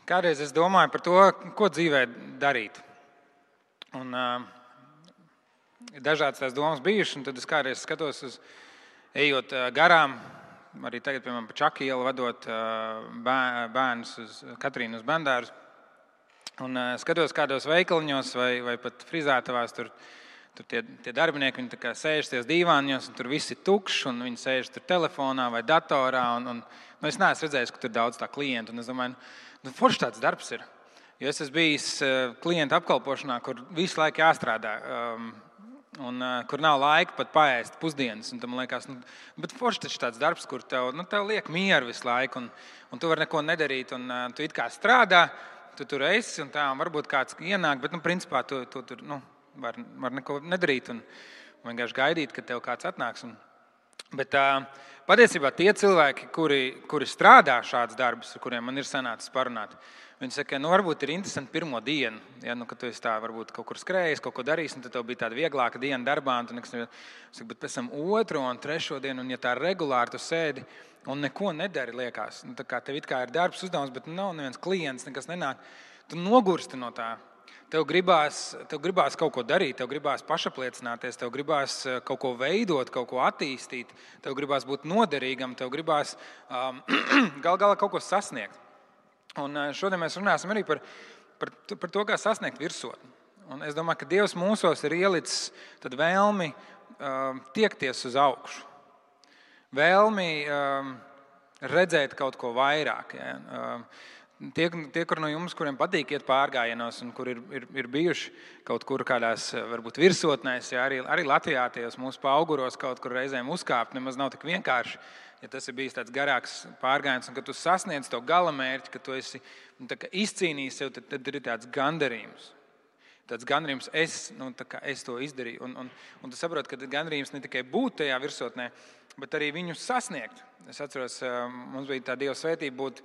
Kādreiz es domāju par to, ko dzīvē darīt. Un ir dažādas tās domas bijušas, un tad es kādreiz skatos ejot garām, arī tagad, piemēram, pa Čaku ielu vadot bērnus uz Katrīnu uz bērndārzu. Un skatos kādos veikaliņos vai pat frizētavās, tur tie darbinieki, viņi tā kā sēž ties dīvāņos, un tur viss ir tukšs, un viņi sēž tur telefonā vai datorā, un es neesmu redzējis, ka tur daudz tā klientu, un es domāju, forši tāds darbs ir. Jo es esmu bijis klienta apkalpošanā, kur visu laiku jāstrādā, un kur nav laika pat paēst pusdienas, un tam liekas, bet forši taču tāds darbs, kur tev liek mieru visu laiku, un tu vari neko nedarīt, un tu it kā strādā, tu tur esi, un tā, un varbūt kāds ienāk, bet, principā, tu tur, var neko nedarīt un vienkārši gaidīt, kad tev kāds atnāks. Bet patiesībā tie cilvēki, kuri strādā šāds darbus, ar kuriem man ir sanācis parunāt, viņi saka, varbūt ir interesanti pirmo dienu, ja, kad tu esi tā, varbūt kaut kur skrējis, kaut ko darījis, un tad tev bija tāda vieglāka diena darbā, un tu nekas, bet pēc tam otro un trešo dienu, un ja tā regulāri tu sēdi un neko nedari, liekas, tā kā tev it kā ir darbs uzdevums, bet nav neviens klients, nekas nenāk, tu nogursti no tā. Tev gribās kaut ko darīt, tev gribās pašapliecināties, tev gribās kaut ko veidot, kaut ko attīstīt, tev gribās būt noderīgam, tev gribās gal galā kaut ko sasniegt. Un šodien mēs runāsim arī par to, kā sasniegt virsotni. Un es domāju, ka Dievs mūsos ir ielicis tad vēlmi tiekties uz augšu, vēlmi redzēt kaut ko vairāk. Ja? Tie, kur no jums, kuriem patīk iet pārgājienos un kur ir bijuši kaut kur kādās, varbūt virsotnēs, ja, arī Latvijā tajos mūsu paauguros kaut kur reizēm uzkāpt, nemaz nav tik vienkārši, ja tas ir bijis tāds garāks pārgājiens, un kad tu sasniedz to galamērķi, ka tu esi izcīnījis sev, tad ir tāds gandarījums. Tāds gandarījums, es to izdarīju. Un tu saproti, ka gandarījums ne tikai būt tajā virsotnē, bet arī viņu sasniegt. Es atceros, mums bija tā Dieva svētība būt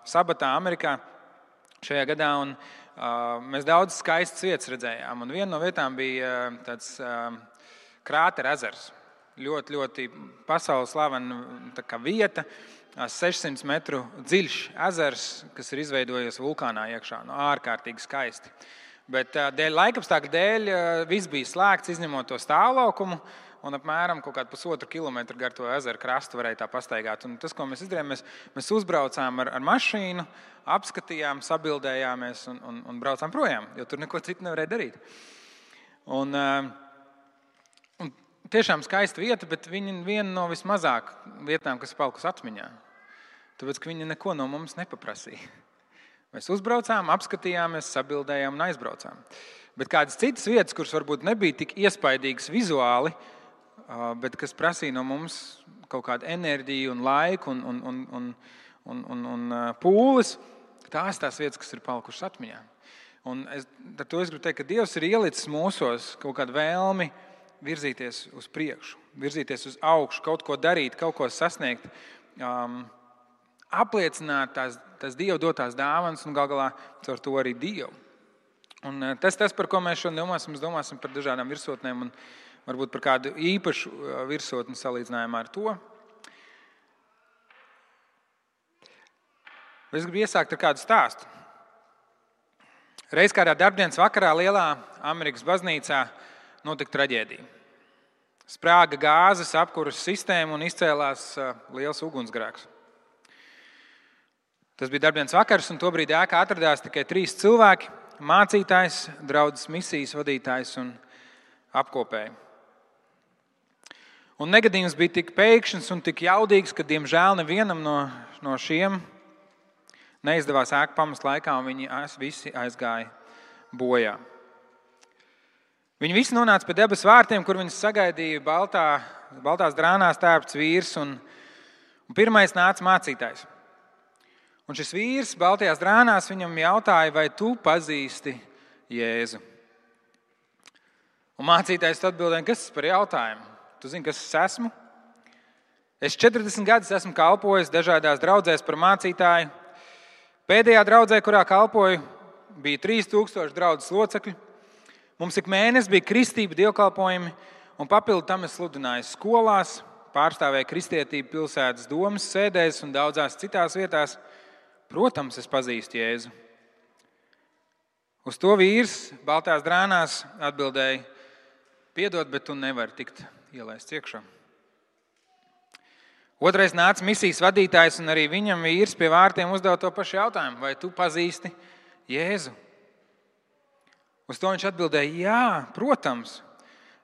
sabatā Amerikā šajā gadā, un mēs daudz skaistas vietas redzējām. Un viena no vietām bija tāds krātera ezers. Ļoti, ļoti pasaules slavena vieta, 600 metru dziļš ezers, kas ir izveidojies vulkānā iekšā. Ārkārtīgi skaisti. Bet laikapstākļu dēļ viss bija slēgts, izņemot to stāvlaukumu, un apmēram kaut kādu 1,5 kilometru gar to ezeru krastu varēja tā pastaigāt. Un tas, ko mēs izdarījām, mēs uzbraucām ar mašīnu, apskatījām, sabildējāmies un braucām projām, jo tur neko citu nevarēja darīt. Un tiešām skaista vieta, bet viņa viena no vismazāk vietām, kas palikusi atmiņā. Tāpēc, ka viņa neko no mums nepaprasīja. Mēs uzbraucām, apskatījāmies, sabildējām un aizbraucām. Bet kādas citas vietas, kuras varbūt nebija tik iespaidīgas vizuāli, bet kas prasīja no mums kaut kādu enerģiju un laiku un pūles, tās vietas, kas ir palikušas atmiņā. Un ar to es gribu teikt, ka Dievs ir ielicis mūsos kaut kādu vēlmi virzīties uz priekšu, virzīties uz augšu, kaut ko darīt, kaut ko sasniegt, apliecināt tās Dieva dotās dāvanas un gal galā caur to arī Dievu. Un tas, par ko mēs šodien domāsim par dažādām virsotnēm un varbūt par kādu īpašu virsotni salīdzinājumā ar to. Es gribu iesākt ar kādu stāstu. Reiz kādā darbdienas vakarā lielā Amerikas baznīcā notika traģēdija. Sprāga gāzes apkuras sistēma un izcēlās liels ugunsgrēks. Tas bija darbdienas vakars, un tobrīd ēkā atradās tikai 3 cilvēki – mācītājs, draudzes misijas vadītājs un apkopēji. Un negadījums bija tik pēkšņs un tik jaudīgs, ka, diemžēl, nevienam no šiem neizdevās ēku pamest laikā, un viņi visi aizgāja bojā. Viņi visi nonāca pie debesu vārtiem, kur viņus sagaidīja baltās drānās tērpts vīrs, un pirmais nāca mācītājs. Un šis vīrs baltajās drānās viņam jautāja, vai tu pazīsti Jēzu? Un mācītājs atbildēja, kas tas par jautājumu? Tu zini, kas es esmu? Es 40 gadus esmu kalpojis dažādās draudzēs par mācītāju. Pēdējā draudzē, kurā kalpoju, bija 3000 draudzes locekļi. Mums ik mēnesi bija kristība dievkalpojumi, un papildu tam es sludināju skolās, pārstāvēju kristietību pilsētas domas sēdēs un daudzās citās vietās. Protams, es pazīstu Jēzu. Uz to vīrs baltās drānās atbildēja: piedod, bet tu nevari tikt ielaists iekšā. Otrais nāca misijas vadītājs, un arī viņam vīrs pie vārtiem uzdeva to pašu jautājumu: vai tu pazīsti Jēzu? Uz to viņš atbildēja: jā, protams.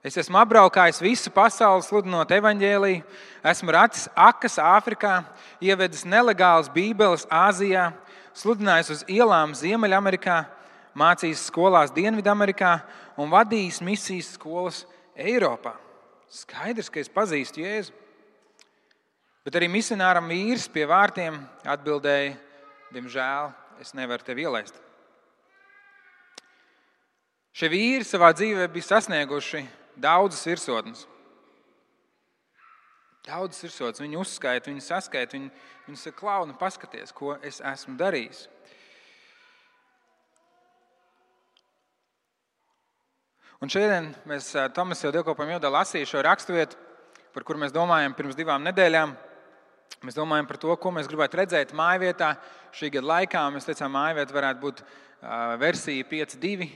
Es esmu apbraukājis visu pasauli, sludinot evaņģēliju, esmu racis akas Āfrikā, ievedis nelegālas bībeles Āzijā, sludinājis uz ielām Ziemeļamerikā, mācījis skolās Dienvidamerikā un vadījis misijas skolas Eiropā. Skaidrs, ka es pazīstu Jēzu. Bet arī misionāram vīrs pie vārtiem atbildēja: diemžēl, es nevaru tevi ielaist. Šie vīri savā dzīvē bija sasnieguši daudzas virsotnes. Daudzas virsotnes. Viņi uzskaita, viņi saskaita, viņi saka: klauni, paskaties, ko es esmu darījis. Un šodien mēs Tomas jau dievkalpojuma ievadā lasīja šo raksturvietu, par kuru mēs domājam pirms 2 nedēļām. Mēs domājam par to, ko mēs gribētu redzēt mājvietā šī gada laikā. Mēs teicām, mājvieta varētu būt versija 5.2,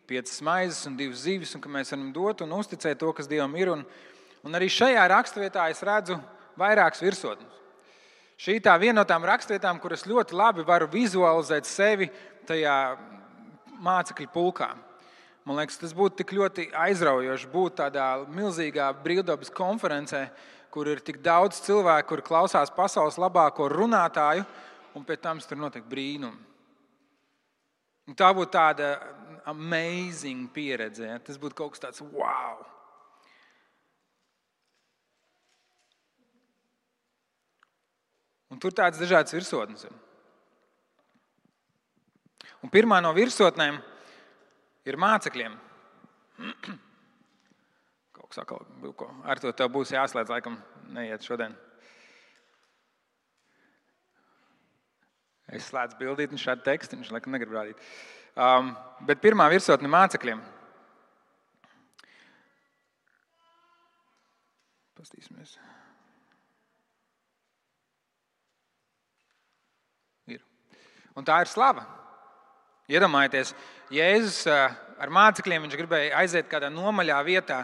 5 maizes un 2 zivis, un ka mēs varam dot un uzticēt to, kas Dievam ir. Un arī šajā raksturvietā es redzu vairākas virsotnes. Šī tā viena no tām raksturvietām, kuras ļoti labi varu vizualizēt sevi tajā mācekļu pulkā. Man liekas, tas būtu tik ļoti aizraujoši būt tādā milzīgā brīvdabas konferencē, kur ir tik daudz cilvēku, kur klausās pasaules labāko runātāju, un pēc tam tur notiek brīnumi. Un tā būtu tāda amazing pieredze. Ja? Tas būtu kaut kas tāds wow! Un tur tādas dažādas virsotnes. Un pirmā no virsotnēm ir mācekļiem. Kaut kas atkal, ar to tev būs jāslēdz, laikam neiet šodien. Es slēdzu bildīt un šādu tekstu, viņš laikam negrib rādīt. Bet pirmā virsotne mācekļiem. Pastīsimies. Ir. Un tā ir slava. Iedomājieties, Jēzus ar mācekļiem, viņš gribēja aiziet kādā nomaļā vietā.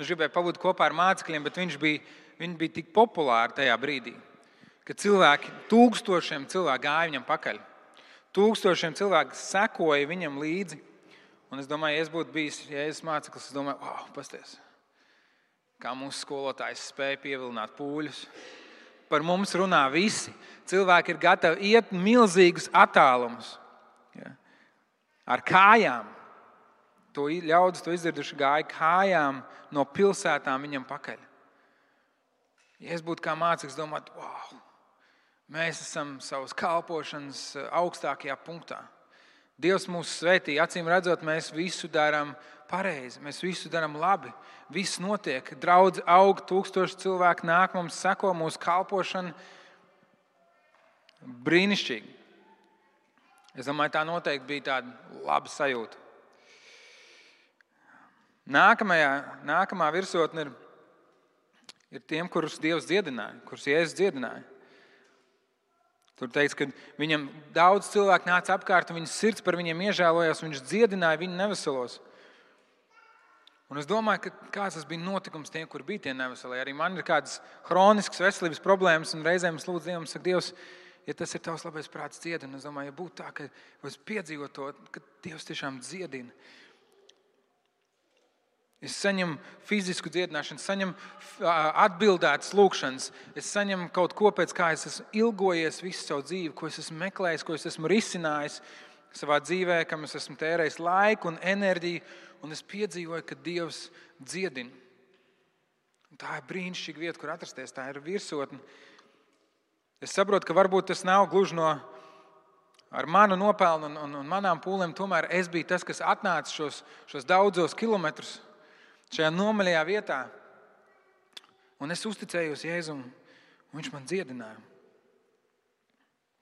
Viņš gribēja pabūt kopā ar mācekļiem, bet viņi bija tik populāri tajā brīdī, ka tūkstošiem cilvēku gāja viņam pakaļ. Tūkstošiem cilvēku sekoja viņam līdzi. Un es domāju, ja es būtu bijis Jēzus māceklis, es domāju, wow, pasties, kā mūsu skolotājs spēja pievilināt pūļus. Par mums runā visi. Cilvēki ir gatavi iet milzīgus attālumus. Ja. Ar kājām. Ļaudis to izdarījuši, gāja kājām no pilsētām viņam pakaļ. Ja es būtu kā māceklis, domātu, wow, mēs esam savas kalpošanas augstākajā punktā. Dievs mūs svētī, acīm redzot, mēs visu darām pareizi, mēs visu darām labi. Viss notiek, draudze aug, 1000 cilvēku nāk, mums seko mūsu kalpošana. Brīnišķīgi. Es domāju, tā noteikti bija tāda laba sajūta. Nākamā virsotne ir tiem, kurus Dievs dziedināja, kurus Jēzus dziedināja. Tur teikts, ka viņam daudz cilvēku nāca apkārt, un viņas sirds par viņiem iežēlojās, un viņš dziedināja viņu neveselos. Un es domāju, ka kāds tas bija notikums tiem, kur bija tie neveselie. Arī man ir kādas hroniskas veselības problēmas, un reizēm es lūdzu Dievam, saku, Dievs, ja tas ir tavs labais prāts dziedina, es domāju, ja būtu tā, ka es piedzīvotu to, ka Dievs tiešām dziedina. Es saņemu fizisku dziedināšanu, saņemu atbildētas lūkšanas, es saņemu kaut ko, pēc kā es esmu ilgojies visu savu dzīvi, ko es esmu meklējis, ko es esmu risinājis savā dzīvē, kam es esmu tērējis laiku un enerģiju, un es piedzīvoju, ka Dievs dziedina. Un tā ir brīnišķīga vieta, kur atrasties, tā ir virsotne. Es saprotu, ka varbūt tas nav gluži ar manu nopelnu un manām pūlēm, tomēr es biju tas, kas atnāca šos daudzos kilometrus šajā nomaļajā vietā. Un es uzticējos Jēzum, un viņš man dziedināja.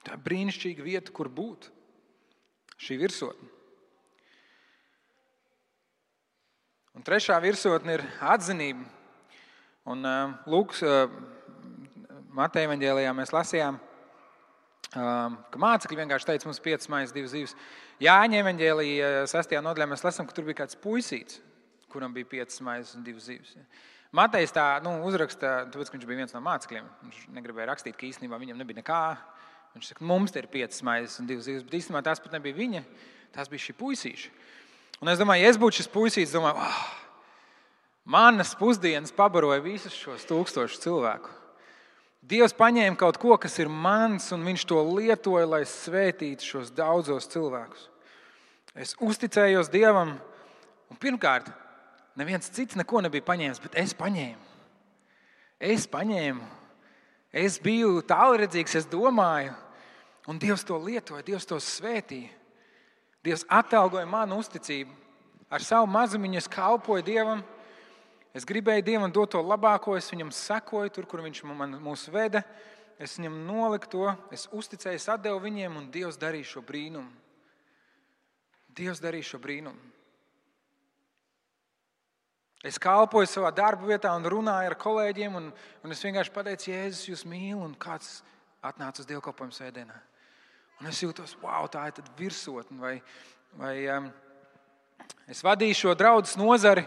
Tā ir brīnišķīga vieta, kur būt. Šī virsotne. Un trešā virsotne ir atzinība. Un Lūkas Mateja evaņģēlijā mēs lasījām, ka mācekļi vienkārši teica, mums 5 maizes, 2 zivis. Jāņa evaņģēlijā 6. nodaļā mēs lasām, ka tur bija kāds puisīts, kuram bija 5 maizes un 2 zivis. Matejs tā uzraksta, tāpēc, ka viņš bija viens no mācekļiem. Viņš negribēja rakstīt, ka īstenībā viņam nebija nekā. Viņš saka, mums te ir 5 maizes un 2 zivis, bet īstenībā tās pat nebija viņa, tās bija šī puisīša. Un es domāju, ja es būtu šis puisīts, domāju, manas pusdienas pabaroja visus šos 1000 cilvēku. Dievs paņēma kaut ko, kas ir mans, un viņš to lietoja, lai svētītu šos daudzos cilvēkus. Es uzticējos Dievam, un pirmkārt, neviens cits neko nebija paņēmis, bet es paņēmu. Es biju tālredzīgs, es domāju, un Dievs to lietoja, Dievs to svētīja. Dievs atalgoja manu uzticību. Ar savu mazumiņu es kalpoju Dievam. Es gribēju Dievam dot to labāko, es viņam sekoju tur, kur viņš mūs veda. Es viņam noliku to, es uzticēju, es atdevu viņiem, un Dievs darīja šo brīnumu. Dievs darīja šo brīnumu. Es kalpoju savā darba vietā un runāju ar kolēģiem, un es vienkārši pateicu, Jēzus, jūs mīlu, un kāds atnāca uz dievkalpojumu svētdienā. Un es jūtos, wow, tā ir tad virsotne, vai es vadīju šo draudzes nozari,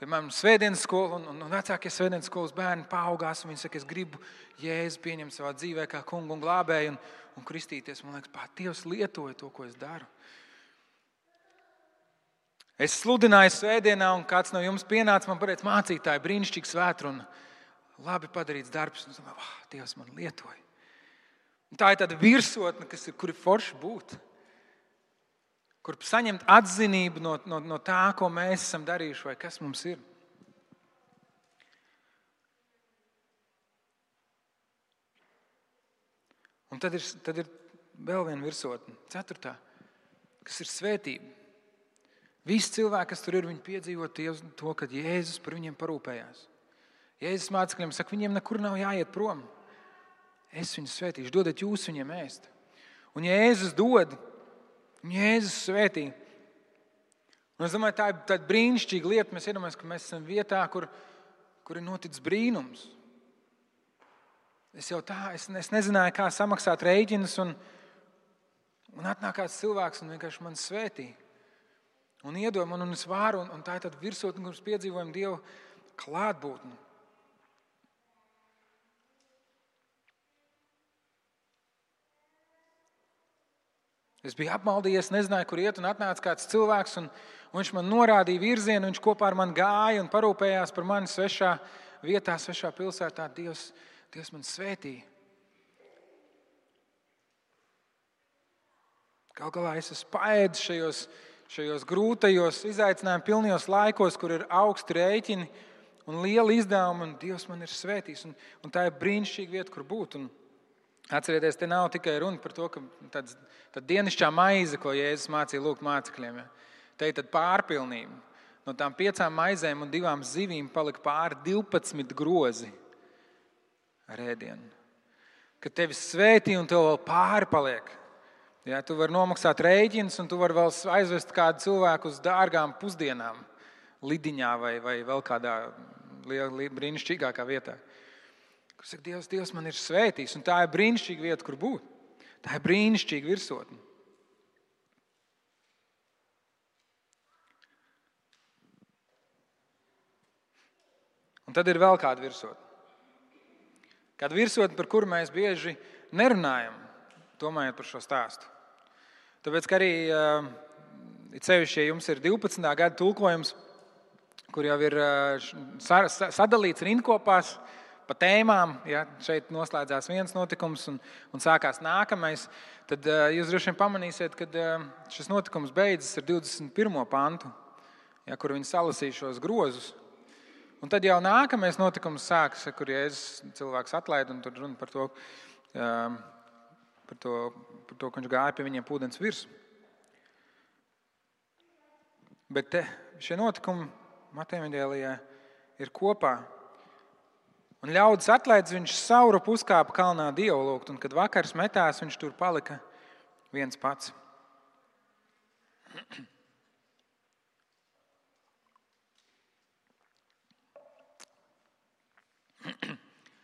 piemēram, svētdienas skolu, un vecākie svētdienas skolas bērni paaugās, un viņi saka, es gribu Jēzu pieņemt savā dzīvē kā kungu un glābēju un kristīties. Man liekas, Dievs lietoja to, ko es daru. Es sludināju svētdienā, un kāds no jums pienāca, man pateica, mācītāji, brīnišķīgi svētruna, labi padarīts darbs. Un es domāju, Dievs man lietoja. Un tā ir tāda virsotne, kur ir forši būt. Kur saņemt atzinību no tā, ko mēs esam darījuši vai kas mums ir. Un tad ir vēl viena virsotne, 4. kas ir svētība. Visi cilvēki, kas tur ir, viņi piedzīvo to, ka Jēzus par viņiem parūpējās. Jēzus mācekļiem saka, viņiem nekur nav jāiet prom. Es viņus svētīšu, dodat jūs viņiem ēst. Un Jēzus dod, un Jēzus svētī. Un es domāju, tā ir brīnišķīga lieta. Mēs iedomājamies, ka mēs esam vietā, kur ir noticis brīnums. Es nezināju, kā samaksāt rēķinus, un atnāk kāds cilvēks un vienkārši man svētī. Un iedod man, un es varu, un tā ir tāda virsotne, kur mēs piedzīvojam Dievu klātbūtni. Es biju apmaldījies, nezināju, kur iet, un atnāca kāds cilvēks, un viņš man norādīja virzienu, viņš kopā ar mani gāja un parūpējās par mani svešā vietā, svešā pilsētā. Dievs man svētīja. Galu galā es esmu paēdis šajos grūtajos, izaicinājumu pilnajos laikos, kur ir augsti rēķini un liela izdevuma, un Dievs man ir svētījis. Un tā ir brīnišķīga vieta, kur būt. Un atcerieties, te nav tikai runa par to, ka tad dienišķā maize, ko Jēzus mācīja lūgt mācekļiem. Ja? Te ir tad pārpilnība. No tām 5 maizēm un 2 zivīm palika pāri 12 grozi ar ēdienu. Kad tevi svētī un tev vēl pāri paliek. Ja, tu vari nomaksāt rēķinus, un tu vari vēl aizvest kādu cilvēku uz dārgām pusdienām Lidiņā vai vēl kādā brīnišķīgākā vietā. Kur saka, Dievs man ir svētījis, un tā ir brīnišķīga vieta, kur būt. Tā ir brīnišķīga virsotne. Un tad ir vēl kāda virsotne. Kāda virsotne, par kuru mēs bieži nerunājam, domājot par šo stāstu. Tāpēc, ka arī sevišķi, ja jums ir 12. gada tulkojums, kur jau ir sadalīts rindkopās pa tēmām, ja šeit noslēdzās viens notikums un sākās nākamais, tad jūs droši vien pamanīsiet, ka šis notikums beidzas ar 21. pantu, ja, kur viņi salasīja šos grozus. Un tad jau nākamais notikums sākas, kur Jēzus cilvēks atlaid, un tur runa par to, ka viņš gāja pie viņiem ūdens virsmu. Bet šie notikumi Mateja evaņģēlijā ir kopā. Un ļaudis atlaidis, viņš sauru puskāpa kalnā Dievu lūgt, un kad vakars metās, viņš tur palika viens pats.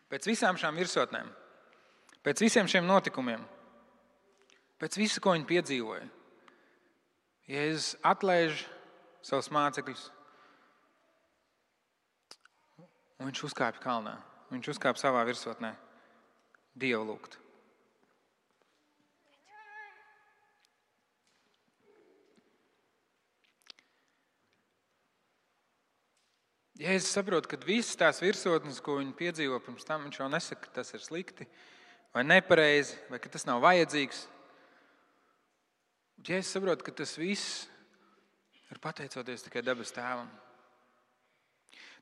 Pēc visām šām virsotnēm, pēc visiem šiem notikumiem, Pēc visa, ko viņi piedzīvoja. Jēzus atlaiž savus mācekļus, un viņš uzkāpj kalnā. Viņš uzkāpj savā virsotnē Dievu lūgt. Jēzus saprot, ka visas tās virsotnes, ko viņi piedzīvo pirms tam, viņš jau nesaka, ka tas ir slikti vai nepareizi, vai ka tas nav vajadzīgs. Jēzus saprot, ka tas viss ir pateicoties tikai debes Tēvam.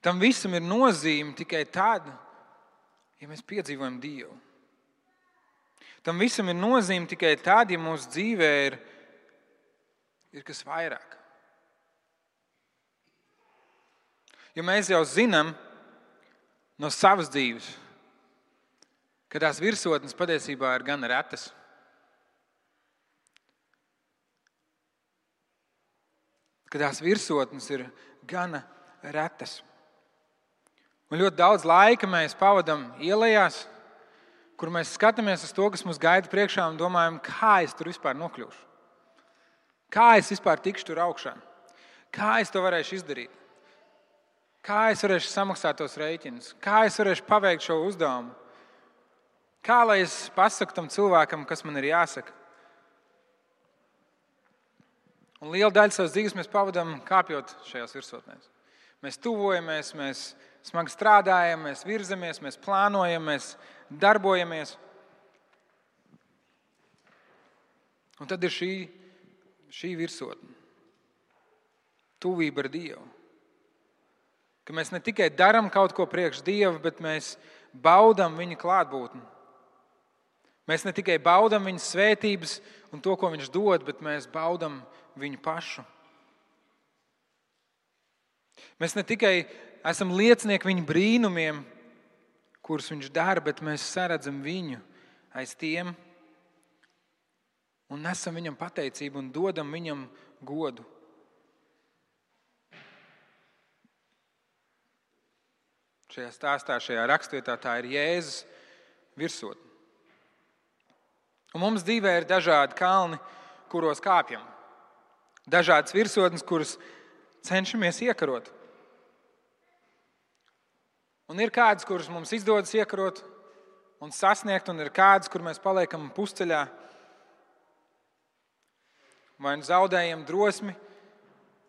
Tam visam ir nozīme tikai tad, ja mēs piedzīvojam Dievu. Tam visam ir nozīme tikai tad, ja mūsu dzīvē ir kas vairāk. Jo mēs jau zinām no savas dzīves, ka tās virsotnes patiesībā ir gan retas. Ka tās virsotnes ir gana retas. Un ļoti daudz laika mēs pavadām ielējās, kur mēs skatāmies uz to, kas mums gaida priekšā un domājam, kā es tur vispār nokļūšu. Kā es vispār tikšu tur augšā. Kā es to varēšu izdarīt. Kā es varēšu samaksāt tos rēķinus. Kā es varēšu paveikt šo uzdevumu. Kā lai es pasaku tam cilvēkam, kas man ir jāsaka. Un lielu daļu savas dzīves mēs pavadām kāpjot šajās virsotnēs. Mēs tuvojamies, mēs smagi strādājam, mēs virzamies, mēs plānojam, mēs darbojamies. Un tad ir šī virsotne. Tuvība ar Dievu. Ka mēs ne tikai darām kaut ko priekš Dieva, bet mēs baudām viņa klātbūtni. Mēs ne tikai baudām viņa svētības un to, ko viņš dod, bet mēs baudām viņu pašu. Mēs ne tikai esam liecinieki viņa brīnumiem, kurus viņš dara, bet mēs saredzam viņu aiz tiem un nesam viņam pateicību un dodam viņam godu. Šajā stāstā, šajā rakstvietā tā ir Jēzus virsotne. Un mums dzīvē ir dažādi kalni, kuros kāpjam. Dažādas virsotnes, kuras cenšamies iekarot. Un ir kādas, kuras mums izdodas iekarot un sasniegt, un ir kādas, kur mēs paliekam pusceļā. Vai nu zaudējam drosmi,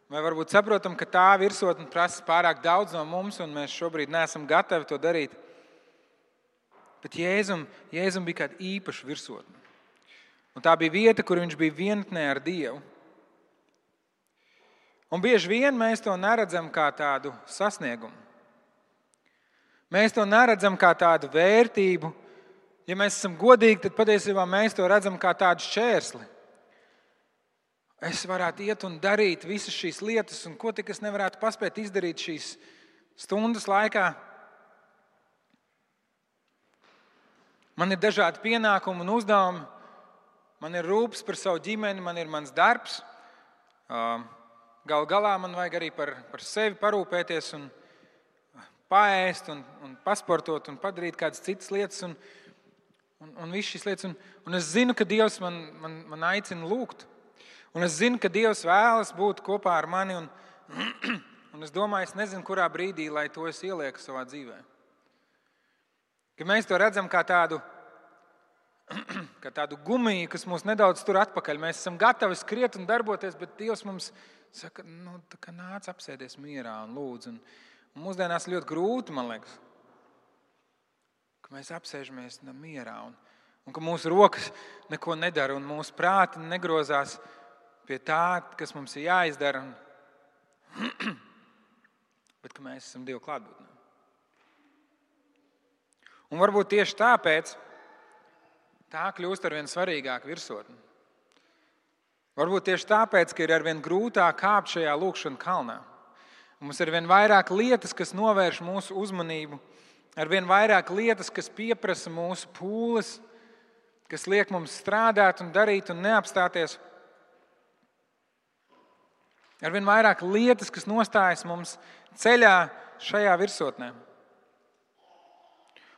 vai varbūt saprotam, ka tā virsotne prasa pārāk daudz no mums, un mēs šobrīd neesam gatavi to darīt. Bet Jēzum bija kāda īpaša virsotne. Un tā bija vieta, kur viņš bija vienatnē ar Dievu. Un bieži vien mēs to neredzam kā tādu sasniegumu. Mēs to neredzam kā tādu vērtību. Ja mēs esam godīgi, tad patiesībā mēs to redzam kā tādu šķērsli. Es varētu iet un darīt visas šīs lietas, un ko tik es nevarētu paspēt izdarīt šīs stundas laikā. Man ir dažādi pienākumi un uzdevumi. Man ir rūpes par savu ģimeni, man ir mans darbs. Galu galā man vajag arī par sevi parūpēties un paēst un pasportot un padarīt kādas citas lietas un visas šīs lietas. Un es zinu, ka Dievs man aicina lūgt. Un es zinu, ka Dievs vēlas būt kopā ar mani. Un es domāju, es nezinu, kurā brīdī, lai to es ielieku savā dzīvē. Ka mēs to redzam kā tādu gumiju, kas mūs nedaudz tur atpakaļ. Mēs esam gatavi skriet un darboties, bet Dievs mums saka, nāc apsēdies mierā un lūdzu. Un mūsdienās ļoti grūti, man liekas, ka mēs apsēžamies mierā un ka mūsu rokas neko nedara un mūsu prāti negrozās pie tā, kas mums ir jāizdara. Bet ka mēs esam Dieva klātbūtnē. Un varbūt tieši tāpēc tā kļūst arvien svarīgāka virsotne. Varbūt tieši tāpēc, ka ir arvien grūtāk kāpt šajā lūkšana kalnā. Mums ir arvien vairāk lietas, kas novērš mūsu uzmanību, arvien vairāk lietas, kas pieprasa mūsu pūles, kas liek mums strādāt un darīt un neapstāties. Arvien vairāk lietas, kas nostājas mums ceļā šajā virsotnē.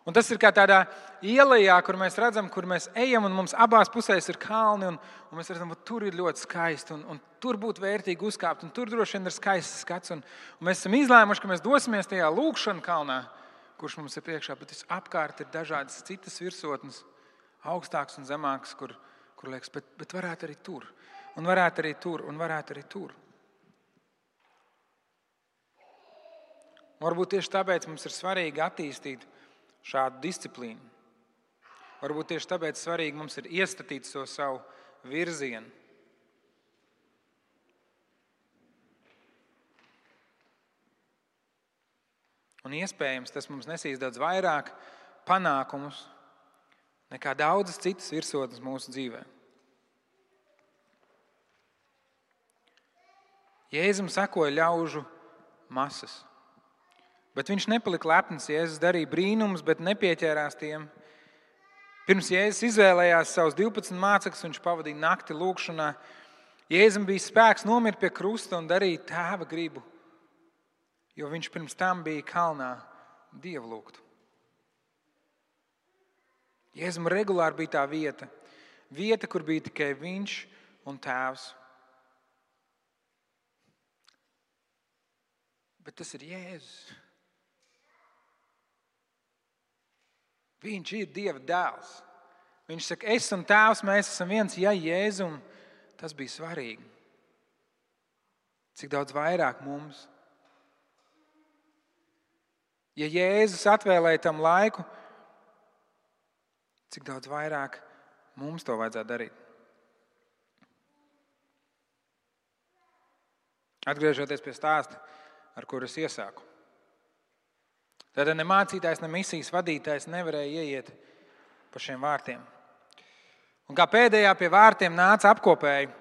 Un tas ir kā tādā ielā, kur mēs redzam, kur mēs ejam, un mums abās pusēs ir kalni, un mēs redzam, ka tur ir ļoti skaisti, un tur būtu vērtīgi uzkāpt, un tur droši vien ir skaists skats. Un mēs esam izlēmuši, ka mēs dosimies tajā lūkšanu kalnā, kurš mums ir priekšā, bet apkārt ir dažādas citas virsotnes, augstākas un zemākas, kur liekas, bet varētu arī tur, un varētu arī tur, un varētu arī tur. Varbūt tieši tāpēc mums ir svarīgi attīstīt šādu disciplīnu. Varbūt tieši tāpēc svarīgi mums ir iestatīt savu virzienu. Un iespējams, tas mums nesīs daudz vairāk panākumus nekā daudzas citas virsotnes mūsu dzīvē. Jēzum sekoja ļaužu masas. Bet viņš nepalika lepns. Jēzus darīja brīnumus, bet nepieķērās tiem. Pirms Jēzus izvēlējās savus 12 mācekļus, viņš pavadīja nakti lūkšanā. Jēzum bija spēks nomirt pie krusta un darīt Tēva gribu, jo viņš pirms tam bija kalnā Dievu lūgt. Jēzum regulāri bija tā vieta, kur bija tikai viņš un Tēvs. Bet tas ir Jēzus. Viņš ir Dieva dēls. Viņš saka, es un Tēvs, mēs esam viens. Ja Jēzum tas bija svarīgi, cik daudz vairāk mums. Ja Jēzus atvēlēja tam laiku, cik daudz vairāk mums to vajadzētu darīt. Atgriežoties pie stāsta, ar kuru es iesāku. Tad ne mācītājs, ne misijas vadītājs nevarēja ieiet pa šiem vārtiem. Un kā pēdējā pie vārtiem nāca apkopēji.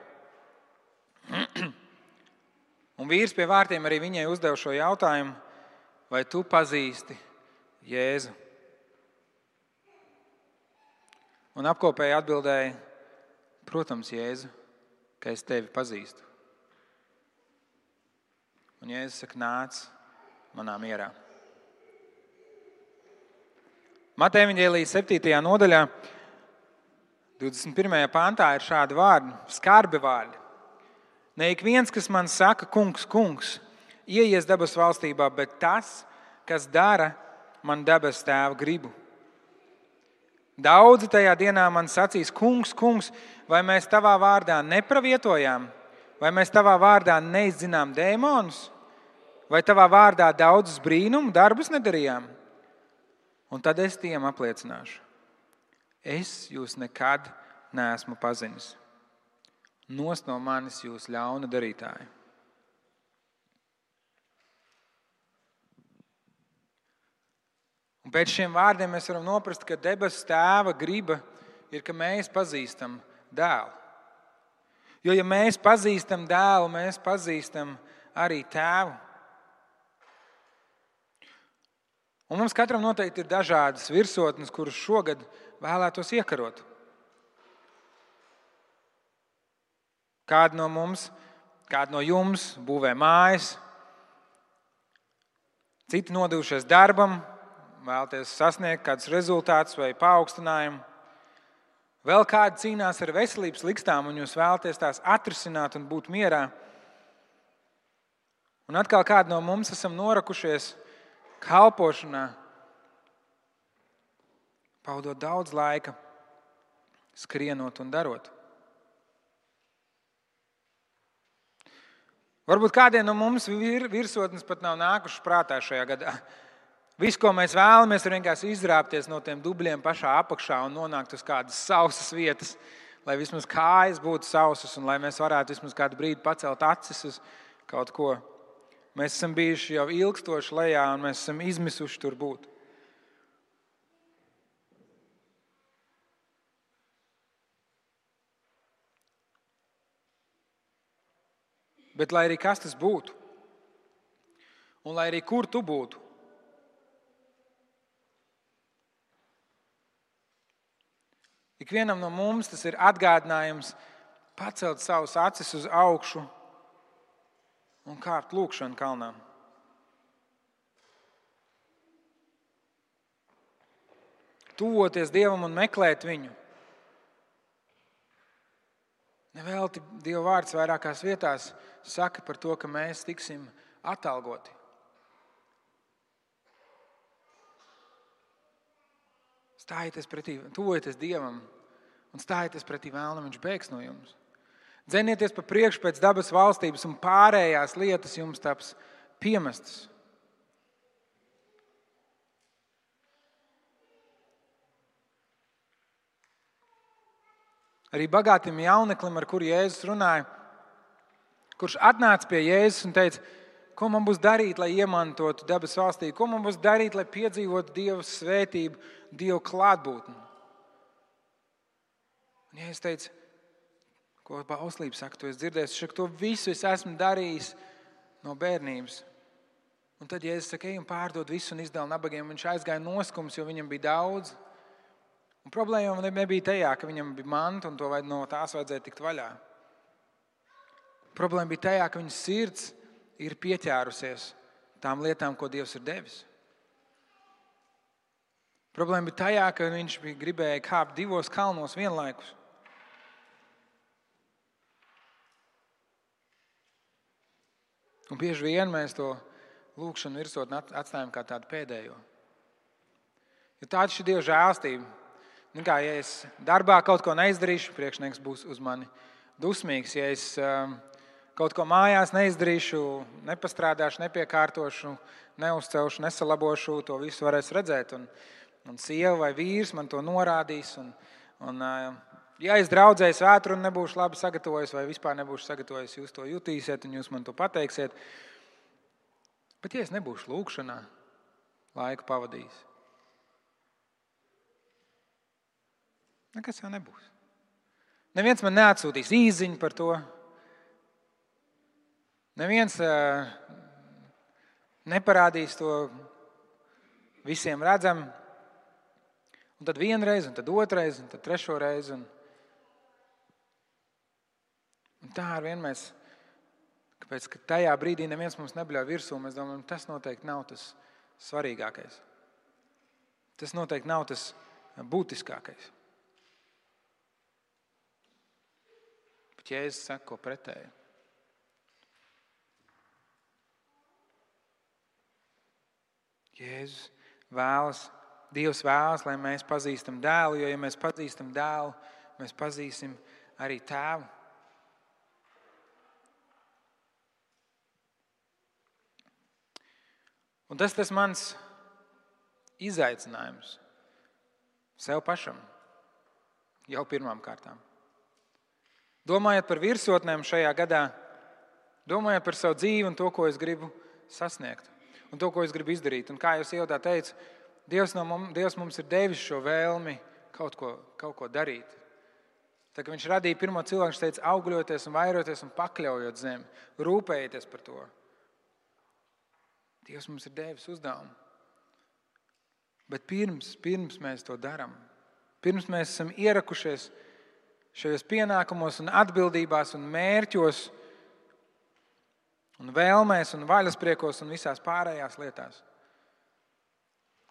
Un vīrs pie vārtiem arī viņai uzdeva šo jautājumu, vai tu pazīsti Jēzu? Un apkopēji atbildēja, protams, Jēzu, ka es tevi pazīstu. Un Jēzus saka, nāc manā mierā. Mateja evaņģēlija 7. nodaļā, 21. pantā ir šādi vārdi, skarbi vārdi. Ne ik viens, kas man saka, kungs, kungs, ieies debesu valstībā, bet tas, kas dara man debesu Tēva gribu. Daudzi tajā dienā man sacīs, kungs, kungs, vai mēs tavā vārdā nepravietojām, vai mēs tavā vārdā neizzinām dēmonus, vai tavā vārdā daudzus brīnumu darbus nedarījām. Un tad es tiem apliecināšu, es jūs nekad neesmu pazinis. Nost no manis jūs ļauna darītāji. Un pēc šiem vārdiem mēs varam noprast, ka debesu Tēva griba ir, ka mēs pazīstam dēlu. Jo ja mēs pazīstam dēlu, mēs pazīstam arī Tēvu. Un mums katram noteikti ir dažādas virsotnes, kuras šogad vēlētos iekarot. Kādi no mums, kādi no jums būvē mājas, citi nodevušies darbam, vēlaties sasniegt kādus rezultātus vai paaugstinājumu. Vēl kādi cīnās ar veselības likstām un jūs vēlaties tās atrisināt un būt mierā. Un atkal kādi no mums esam norakušies kalpošanā, pavadot daudz laika, skrienot un darot. Varbūt kādiem no mums virsotnes pat nav nākušas prātā šajā gadā. Viss, ko mēs vēlamies, ir vienkārši izrāpties no tiem dubļiem pašā apakšā un nonākt uz kādas sausas vietas, lai vismaz kājas būtu sausas un lai mēs varētu vismaz kādu brīdi pacelt acis uz kaut ko. Mēs esam bijuši jau ilgstoši lejā un mēs esam izmisuši tur būt. Bet lai arī kas tas būtu, un lai arī kur tu būtu, ikvienam no mums tas ir atgādinājums pacelt savus acis uz augšu un kāpt lūkšanu kalnā. tuvoties Dievam un meklēt viņu. Nevelti Dieva vārds vairākās vietās saka par to, ka mēs tiksim atalgoti. Stājieties pretī, tuvojieties Dievam un stājieties pretī vēlnam, viņš bēgs no jums. Dzenieties pa priekšu pēc dabas valstības un pārējās lietas jums taps piemestas. Arī bagātim jauneklim, ar kuru Jēzus runāja, kurš atnāca pie Jēzus un teica, ko man būs darīt, lai iemantotu dabas valstī, ko man būs darīt, lai piedzīvotu Dieva svētību, Dieva klātbūtni. Un Jēzus teica, ko bauslība saka, tu esi dzirdējis, to visu es esmu darījis no bērnības. Un tad Jēzus saka, ej un pārdod visu un izdala nabagiem. Viņš aizgāja noskums, jo viņam bija daudz. Un problēma nebija tajā, ka viņam bija manta un no tās vajadzēja tikt vaļā. Problēma bija tajā, ka viņa sirds ir pieķērusies tām lietām, ko Dievs ir devis. Problēma bija tajā, ka viņš gribēja kāpt 2 kalnos vienlaikus. Un bieži vien mēs to lūkšanu virsotni atstājam kā tādu pēdējo. Jo tāda ir Dieva žēlstība. Ja es darbā kaut ko neizdarīšu, priekšnieks būs uz mani dusmīgs. Ja es kaut ko mājās neizdarīšu, nepastrādāšu, nepiekārtošu, neuzcelšu, nesalabošu, to visu varēs redzēt. Un sieva vai vīrs man to norādīs. Ja es draudzēju svētru un nebūšu labi sagatavojis vai vispār nebūšu sagatavojis, jūs to jutīsiet un jūs man to pateiksiet. Bet ja es nebūšu lūkšanā laiku pavadījis, nekas jau nebūs. Neviens man neatsūtīs īsziņu par to. Neviens neparādīs to visiem redzam. Un tad vienreiz, un tad otrreiz, un tad trešo reizi. Un tā ar vien mēs, kāpēc, ka tajā brīdī neviens mums nebļauj virsū, mēs domājam, tas noteikti nav tas svarīgākais. Tas noteikti nav tas būtiskākais. Bet Jēzus saka, ko pretēji. Jēzus vēlas, Dievs vēlas, lai mēs pazīstam dēlu, jo ja mēs pazīstam dēlu, mēs pazīsim arī tēvu. Un tas mans izaicinājums sev pašam jau pirmām kārtām. Domājot par virsotnēm šajā gadā, domājot par savu dzīvi un to, ko es gribu sasniegt un to, ko es gribu izdarīt. Un kā jūs ievadā teicu, Dievs mums ir devis šo vēlmi kaut ko darīt. Tā, ka viņš radīja pirmo cilvēku, viņš teica, augļoties un vairoties un pakļaujot zemi, rūpējieties par to. Dievs mums ir devis uzdevumu. Bet pirms mēs to darām, pirms mēs esam ierakušies šajos pienākumos un atbildībās un mērķos un vēlmēs un vaļaspriekos un visās pārējās lietās,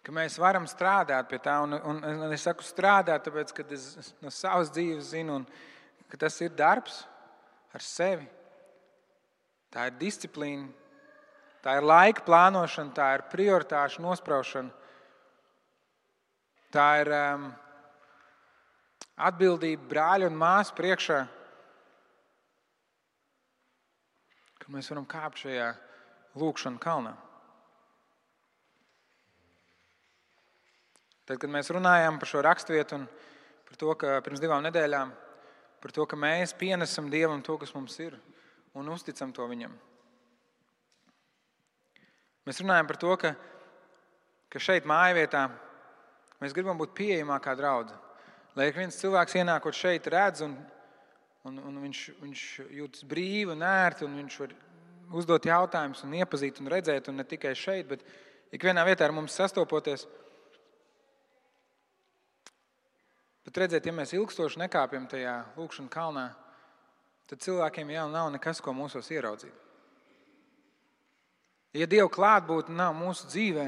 ka mēs varam strādāt pie tā. Un es saku strādāt, tāpēc, ka es no savas dzīves zinu, ka tas ir darbs ar sevi. Tā ir disciplīna. Tā ir laika plānošana, tā ir prioritāšu nospraušana, tā ir atbildība brāļu un māsu priekšā, ka mēs varam kāpt šajā lūkšana kalnā. Tad, kad mēs runājām par šo raksturvietu un par to, ka pirms 2 nedēļām, par to, ka mēs pienesam Dievam to, kas mums ir, un uzticam to Viņam. Mēs runājam par to, ka šeit mājvietā mēs gribam būt pieejamākā draudze. Lai ik viens cilvēks ienākot šeit redz un viņš jūtas brīvi un ērti un viņš var uzdot jautājumus un iepazīt un redzēt un ne tikai šeit, bet ikvienā vietā ar mums sastopoties. Bet redzēt, ja mēs ilgstoši nekāpjam tajā lūkšana kalnā, tad cilvēkiem jau nav nekas, ko mūsos ieraudzīt. Ja Dieva klātbūtne nav mūsu dzīvē,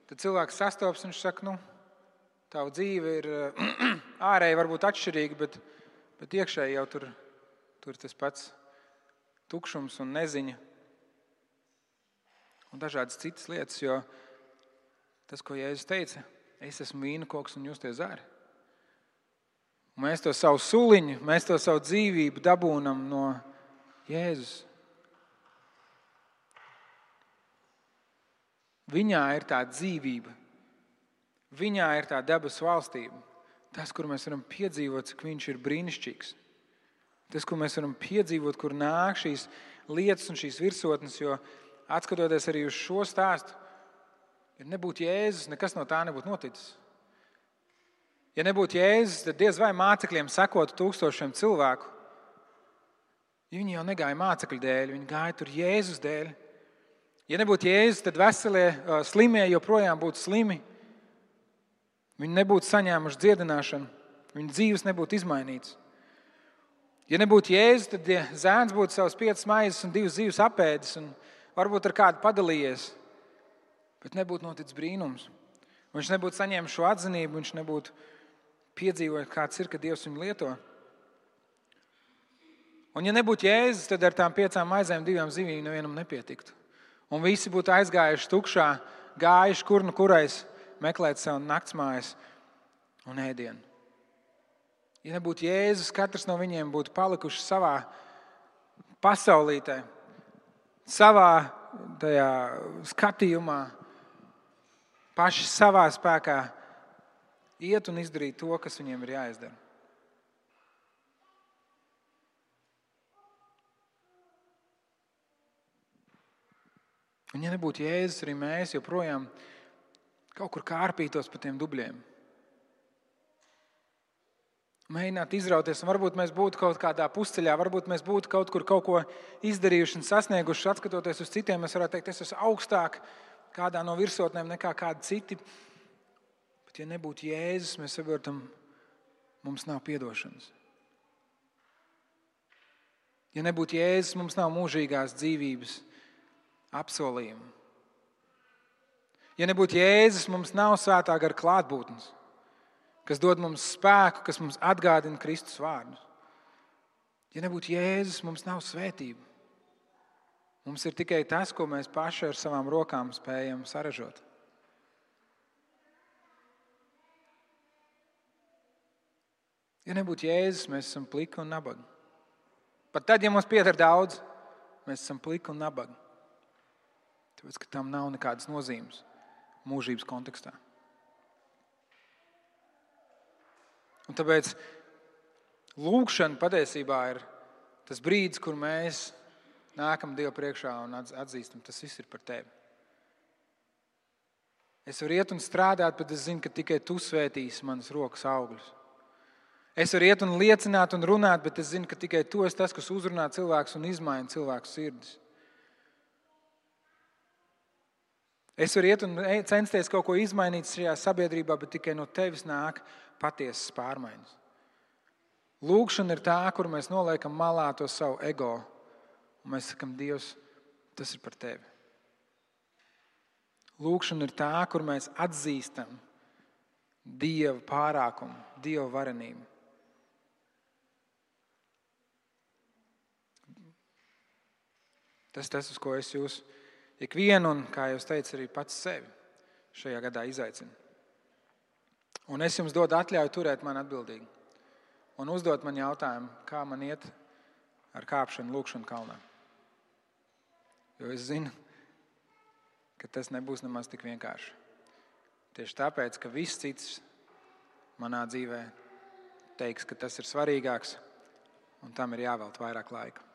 tad cilvēks sastopas un viņš saka, tava dzīve ir ārēji varbūt atšķirīga, bet iekšēji jau tur tas pats tukšums un neziņa un dažādas citas lietas, jo tas, ko Jēzus teica, es esmu vīna koks un jūs tie zari. Mēs to savu suliņu, mēs to savu dzīvību dabūnam no Jēzus. Viņā ir tā dzīvība. Viņā ir tā debesu valstība. Tas, kur mēs varam piedzīvot, cik viņš ir brīnišķīgs. Tas, kur mēs varam piedzīvot, kur nāk šīs lietas un šīs virsotnes, jo atskatoties arī uz šo stāstu, ja nebūtu Jēzus, nekas no tā nebūtu noticis. Ja nebūtu Jēzus, tad diez vai mācekļiem sekotu 1000 cilvēku. Viņi jau negāja mācekļu dēļ, viņi gāja tur Jēzus dēļ. Ja nebūtu Jēzus, tad veselie slimie joprojām būtu slimi. Viņi nebūtu saņēmuši dziedināšanu, viņu dzīves nebūtu izmainītas. Ja nebūtu Jēzus, tad zēns būtu savas 5 maizes un 2 zīves apēdis un varbūt ar kādu padalījies, bet nebūtu noticis brīnums. Viņš nebūtu saņēmis šo atzinību, viņš nebūtu piedzīvojis, kāds ir, ka Dievs viņu lieto. Un ja nebūtu Jēzus, tad ar tām 5 maizēm 2 zivīm nevienam nepietiktu. Un visi būtu aizgājuši tukšā, gājuši kur nu kurais meklēt sev naktsmājas un ēdienu. Ja nebūtu Jēzus, katrs no viņiem būtu palikuši savā pasaulītē, savā tajā skatījumā, paši savā spēkā iet un izdarīt to, kas viņiem ir jāizdara. Un ja nebūtu Jēzus, arī mēs joprojām kaut kur kārpītos pa tiem dubļiem. Mēģināt izrauties, un varbūt mēs būtu kaut kādā pusceļā, varbūt mēs būtu kaut kur kaut ko izdarījuši un sasnieguši, atskatoties uz citiem, mēs varētu teikt, es esmu augstāk kādā no virsotnēm nekā kādi citi. Bet ja nebūtu Jēzus, mēs saprotam, mums nav piedošanas. Ja nebūtu Jēzus, mums nav mūžīgās dzīvības apsolījumu. Ja nebūtu Jēzus, mums nav svētā gara klātbūtnes, kas dod mums spēku, kas mums atgādina Kristus vārdus. Ja nebūtu Jēzus, mums nav svētība. Mums ir tikai tas, ko mēs paši ar savām rokām spējam saražot. Ja nebūtu Jēzus, mēs esam pliki un nabagi. Pat tad, ja mums pieder daudz, mēs esam pliki un nabagi. Tāpēc, ka tam nav nekādas nozīmes mūžības kontekstā. Un tāpēc lūgšana patiesībā ir tas brīdis, kur mēs nākam Dievu priekšā un atzīstam, tas viss ir par tevi. Es varu iet un strādāt, bet es zinu, ka tikai tu svētīsi manas rokas augļus. Es varu iet un liecināt un runāt, bet es zinu, ka tikai tu esi tas, kas uzrunā cilvēkus un izmaina cilvēku sirdis. Es varu iet un censties kaut ko izmainīt šajā sabiedrībā, bet tikai no tevis nāk patiesas pārmaiņas. Lūgšana ir tā, kur mēs noliekam malā to savu ego, un mēs sakam, Dievs, tas ir par tevi. Lūgšana ir tā, kur mēs atzīstam Dieva pārākumu, Dieva varenību. Tas, uz ko es jūs ikvienu, un, kā jau teicu, arī pats sevi šajā gadā izaicinu. Un es jums dodu atļauju turēt mani atbildīgi un uzdot man jautājumu, kā man iet ar kāpšanu lūgšanu kalnā. Jo es zinu, ka tas nebūs nemaz tik vienkārši. Tieši tāpēc, ka viss cits manā dzīvē teiks, ka tas ir svarīgāks un tam ir jāvelta vairāk laika.